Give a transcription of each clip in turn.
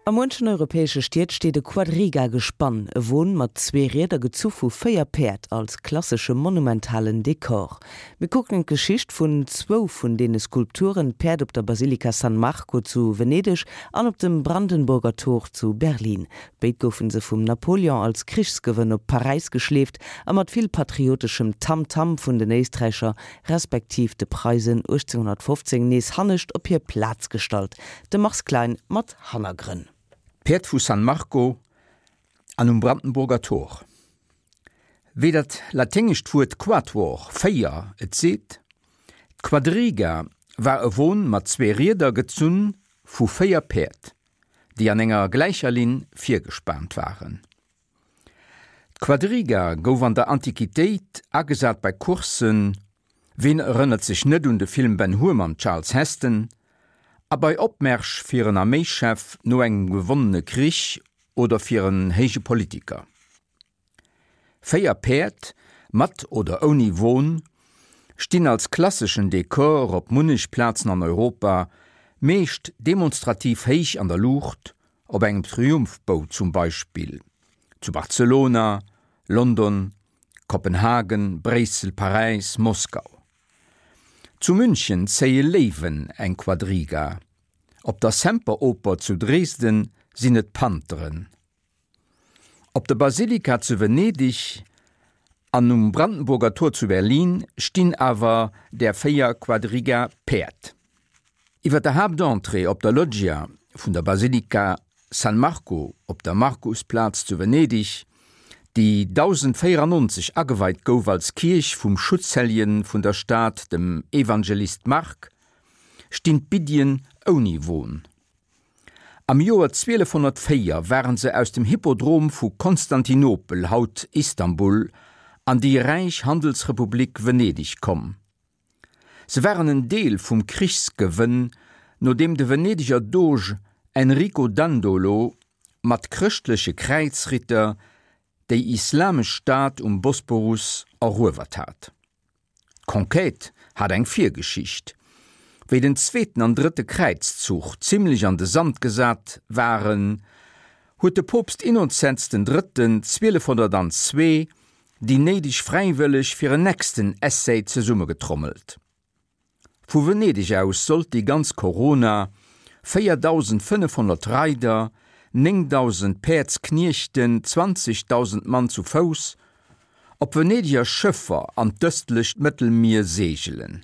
A muenchen europäesche Stied steet e Quadriga-Gespann, e Won mat zwee Rieder gezu vu 4 Päerd, als klassesche monumentalen Dekor. Mir kucken d'Geschicht vun zwou vun deene Skulpturen, d'Päerd op der Basilika San Marco zu Venedeg an op dem Brandenburger Tor zu Berlin. Béid goufe se vum Napoleon als Krichsgewënn op Paräis geschleeft a mat vill patrioteschem Tamtam vun den Éisträicher respektiv de Preisen 1815 nees hannescht op hir Plaz gestallt. De Mars Klein mat Hannergrënn. D'Päerd vu San Marco an um Brandenburger Tor. Wéi dat laténgescht Wuert quatuor, véier, et seet, d'Quadriga war e Won mat zwee Rieder gezunn vu véier Päerd, déi an enger gläicher Linn virgespaant waren. D'Quadriga gouf an der Antiquitéit agesat bei Courssen, ween erënnert sech net un de Film Ben Hur mam Charles Heston, a bei Opmärsch fir en Arméischef no engem gewonnene Krich oder fir en héije Politiker. 4 Päerd, mat oder ouni Won, stinn als klasseschen Dekor op munnech Plazen an Europa, meescht demonstrativ héich an der Luucht, Op engem Triumphbou zum Beispill zu Barcelona, London, Kopenhagen, Bréissel, Paräis, Moskau. Zu München zéie Léiwen eng Quadriga, op der Semperoper zu Dresden sinn et Pantheren. Op der Basilika zu Venedeg an um Brandenburger Tor zu Berlin stinn awer där 4 Quadriga-Päerd. Iwwer der Haaptentrée op der Loggia vun der Basilika San Marco op der Markusplaz zu Venedeg, déi 1094 ageweit gouf als Kierch vum Schutzhelljen vun der Stad, dem Evangelist Mark, stinn d'Biddien ouni Won. Am Joer 1204 waren se aus dem Hippodrom vu Konstantinopel, haut Istanbul, an déi räich Handelsrepublik Venedeg komm. Se waren en Deel vum Krichsgewënn, no deem de Venedeger Doge Enrico Dandolo mat chrëschtleche Kräizritter déi islamesch Stad um Bosporus eruewert hat. D'Conquête hat eng Virgeschicht. Wéi den zweeten an drëtte Kräizzuch zimmlech an de Sand gesat waren, huet de Poopst Innozenz den Drëtten 1202 déi néideg Fräiwëlleg fir en nächsten Essai zesummegetrommelt. Vu Venedeg aus sollt déi ganz Corona, 4.500 Reider, 9.000 Päerdskniechten, 20.000 Mann zu Fouss, op Venedeger Schëffer an d'ëstlecht Mëttelmier seegelen.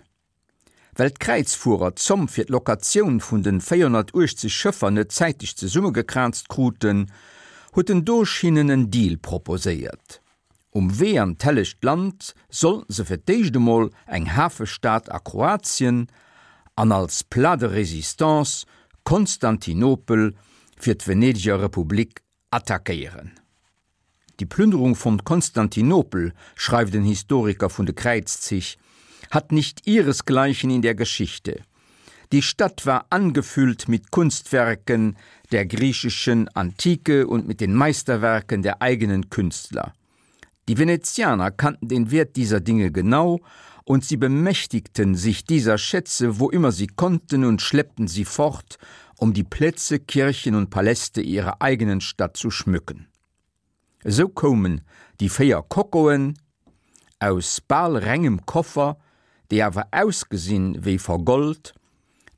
Well d'Kräizfuerer d'Zomm fir d'Locatioun vun den 480 Schëffer net zäiteg zesummegekraazt kruten, huet den Doge hinnen en Deal proposéiert. Um Wee an d'Hellegt Land sollten se fir d'éischt emol eng Hafestad a Kroatien an als Plat de résistance Konstantinopel fir d'Venedeger Republik attackéieren. Die Plünderung von Konstantinopel, schreift en Historiker vun de Kräizzich, hat nicht ihresgleichen in der Geschichte. Die Stadt war angefüllt mit Kunstwerken der griechischen Antike und mit den Meisterwerken der eigenen Künstler. Die Venezianer kannten den Wert dieser Dinge genau und sie bemächtigten sich dieser Schätze, wo immer sie konnten und schleppten sie fort, um die Plätze, Kirchen und Paläste ihrer eigenen Stadt zu schmücken. Esou koumen déi 4 Kokoen aus bal rengem Koffer, déi awer ausgesinn wéi vergold,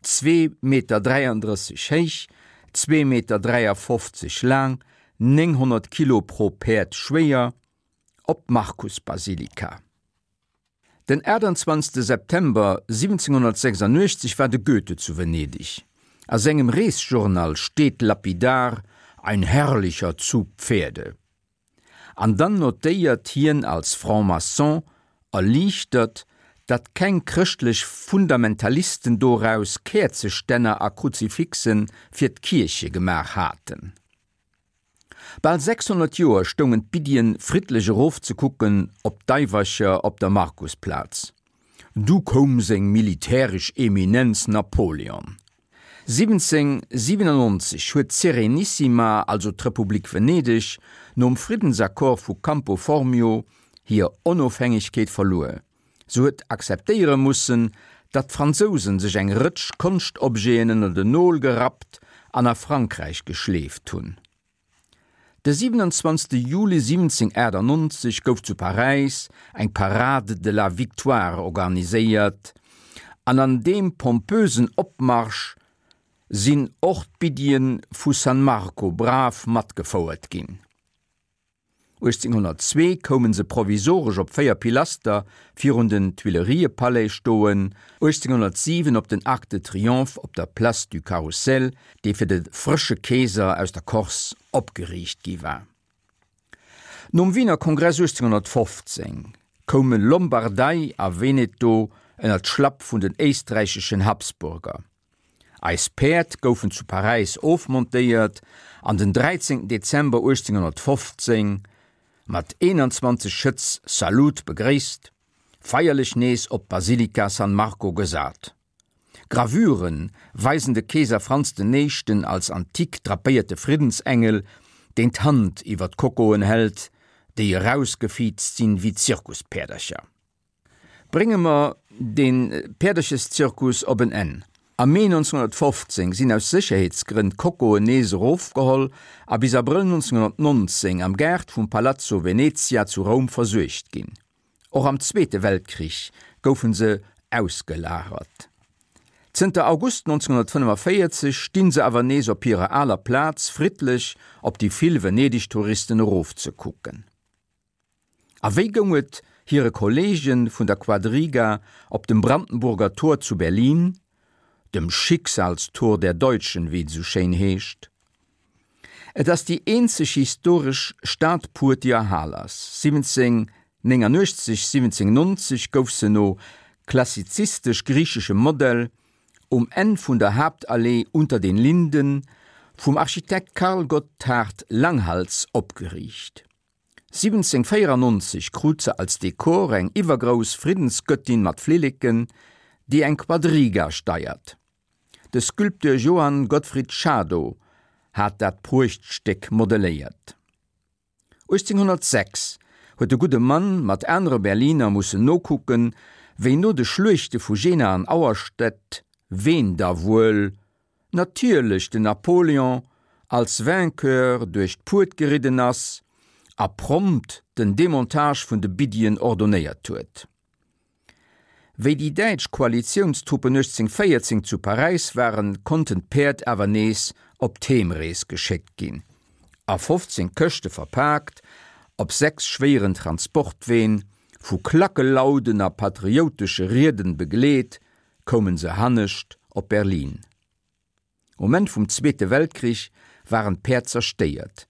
zwee Meter 33 héich, zwee Meter 53 laang, 900 Kilo pro Päerd schwéier, op d'Markusbasilika. Den 28 September 1786 war de Goethe zu Venedeg. A sengem Reesjournal steet lapidar, Ein herrlicher Zug Pferde. An dann notéiert hien als Franc-maçon erliichtert, datt keng chrëschtlech Fundamentalisten doraus Käerzestänner a Kruzifixe fir d'Kierche gemaach haten. Bal 600 Joer stoungen d'Biddien friddlech erofzekucken op d'Daiwercher op der Markusplaz. Du koum seng militäresch Eminenz Napoleon. 1797 huet d'Serenissima, also d'Republik Venedeg, nom Friddensaccord vu Campo Formio hir Onofhängegkeet verluer. Se huet akzeptéiere mussen, datt d'Fransousen sech eng Rëtsch Konschtobjeten ënner den Nol gerappt. an a Frankräich geschleeft hunn. De 27 Juli 1798 gouf zu Paräis eng Parade de la Victoire organiséiert an an deem pompösen Opmarsch sinn och d'Biddien vu San Marco brav matgefouert ginn. 1802 koume se provisoresch op 4 Pilaster virun den Tuileriëpalais stoen, 1807 op den Arc de Triomphe op der Place du Carrousel, dee fir de frësche Keeser aus der Corse opgeriicht gi war. Nom Wiener Kongress 1815 koume Lombardei a Veneto ënner d'Schlapp vun den éisträicheschen Habsburger. Eis Päerd goufen zu Paräis ofmontéiert an den 13 Dezember 1815 mat 21 Schëtz Salut begréisst, feierlech nees op d'Basilika San Marco gesat. Gravüre weisen de Keeser Franz den Éischten als antik drapéierte Friddensengel, deen d'Hand iwwer d'Kokoen hält, déi erausgefiizt sinn wéi Zirkuspäerdercher. Brénge mer dee Päerdercheszirkus op en Enn. Am Mee 1915 sinn aus Sécherheetsgrënn d'Kokoen nees erofgeholl a bis Abrëll 1919 am Gaart vum Palazzo Venezia zu Roum versuergt ginn. Och am Zweete Weltkrich goufe se ausgelagert. Zënter August 1945 stinn se awer nees op hirer aler Plaz, friddlech op déi vill Venedeg-Touristen erofzekucken. A wéi goung et hire Kolleege vun der Quadriga op dem Brandenburger Tor zu Berlin, dem Schicksalstor der Deutschen, wéi et esou schéin heescht? Et ass déi eenzeg historesch Stadpuert, déi erhal ass. 1789, 1790 gouf se no klassizistesch-griicheschem Modell um Enn vun der Haaptallee Unter den Linden vum Architekt Carl Gotthard Langhals opgeriicht. 1794 krut se als Dekor eng iwwergrouss Friddensgöttin mat Flilleken, déi eng Quadriga steiert. De Sculpteur Johann Gottfried Schadow hat dat Pruechtstéck modelléiert. 1806 huet de gudde Mann mat anere Berliner mussen nokucken, wéi no de Schluechte vu Jena an Auerstedt, ween da wuel natierlech den Napoléon als Vainqueur duerch d'Puert geridden ass a prompt den Demontage vun de Biddien ordonéiert huet. Wéi déi däitsch Koalitiounstruppen 1814 zu Paräis waren, konnten d'Päerd awer nees op d'Heemrees geschéckt ginn, a 15 Këschte verpaakt, op 6 schwéieren Transportween, vu Klackelauden a patrioutesche Rieden begleet, koumen se hannescht op Berlin. Um Enn vum Zweete Weltkrich waren d'Päerd zerstéiert.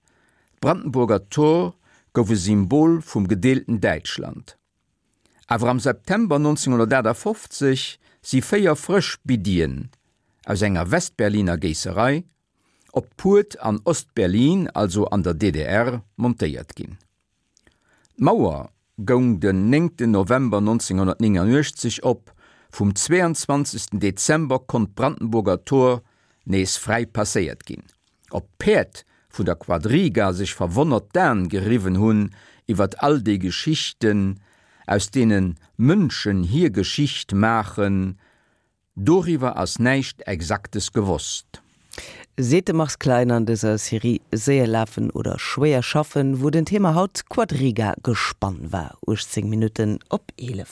D'Brandenburger Tor gouf e Symbol vum gedeelten Däitschland. Awer am September 1958 si 4 frësch Biddien aus enger Westberliner Géisserei op d'Puert an Ostberlin, also an der DDR, montéiert ginn. D'Mauer goung den néngten November 1989 op, vum 22. Dezember konnt d'Brandenburger Tor nees fräi passéiert ginn. Ob d'Päerd vun der Quadriga sech verwonnert d'Aen geriwwen hunn iwwert all déi Geschichten, aus deene Mënschen hir Geschicht maachen, Doriwwer ass näischt Exaktes gewosst. Seet de Mars Klein an dëser Serie Séier lafen oder schwéier schaffen, wou den Thema haut Quadriga-Gespann war. 18 Minutten op 11.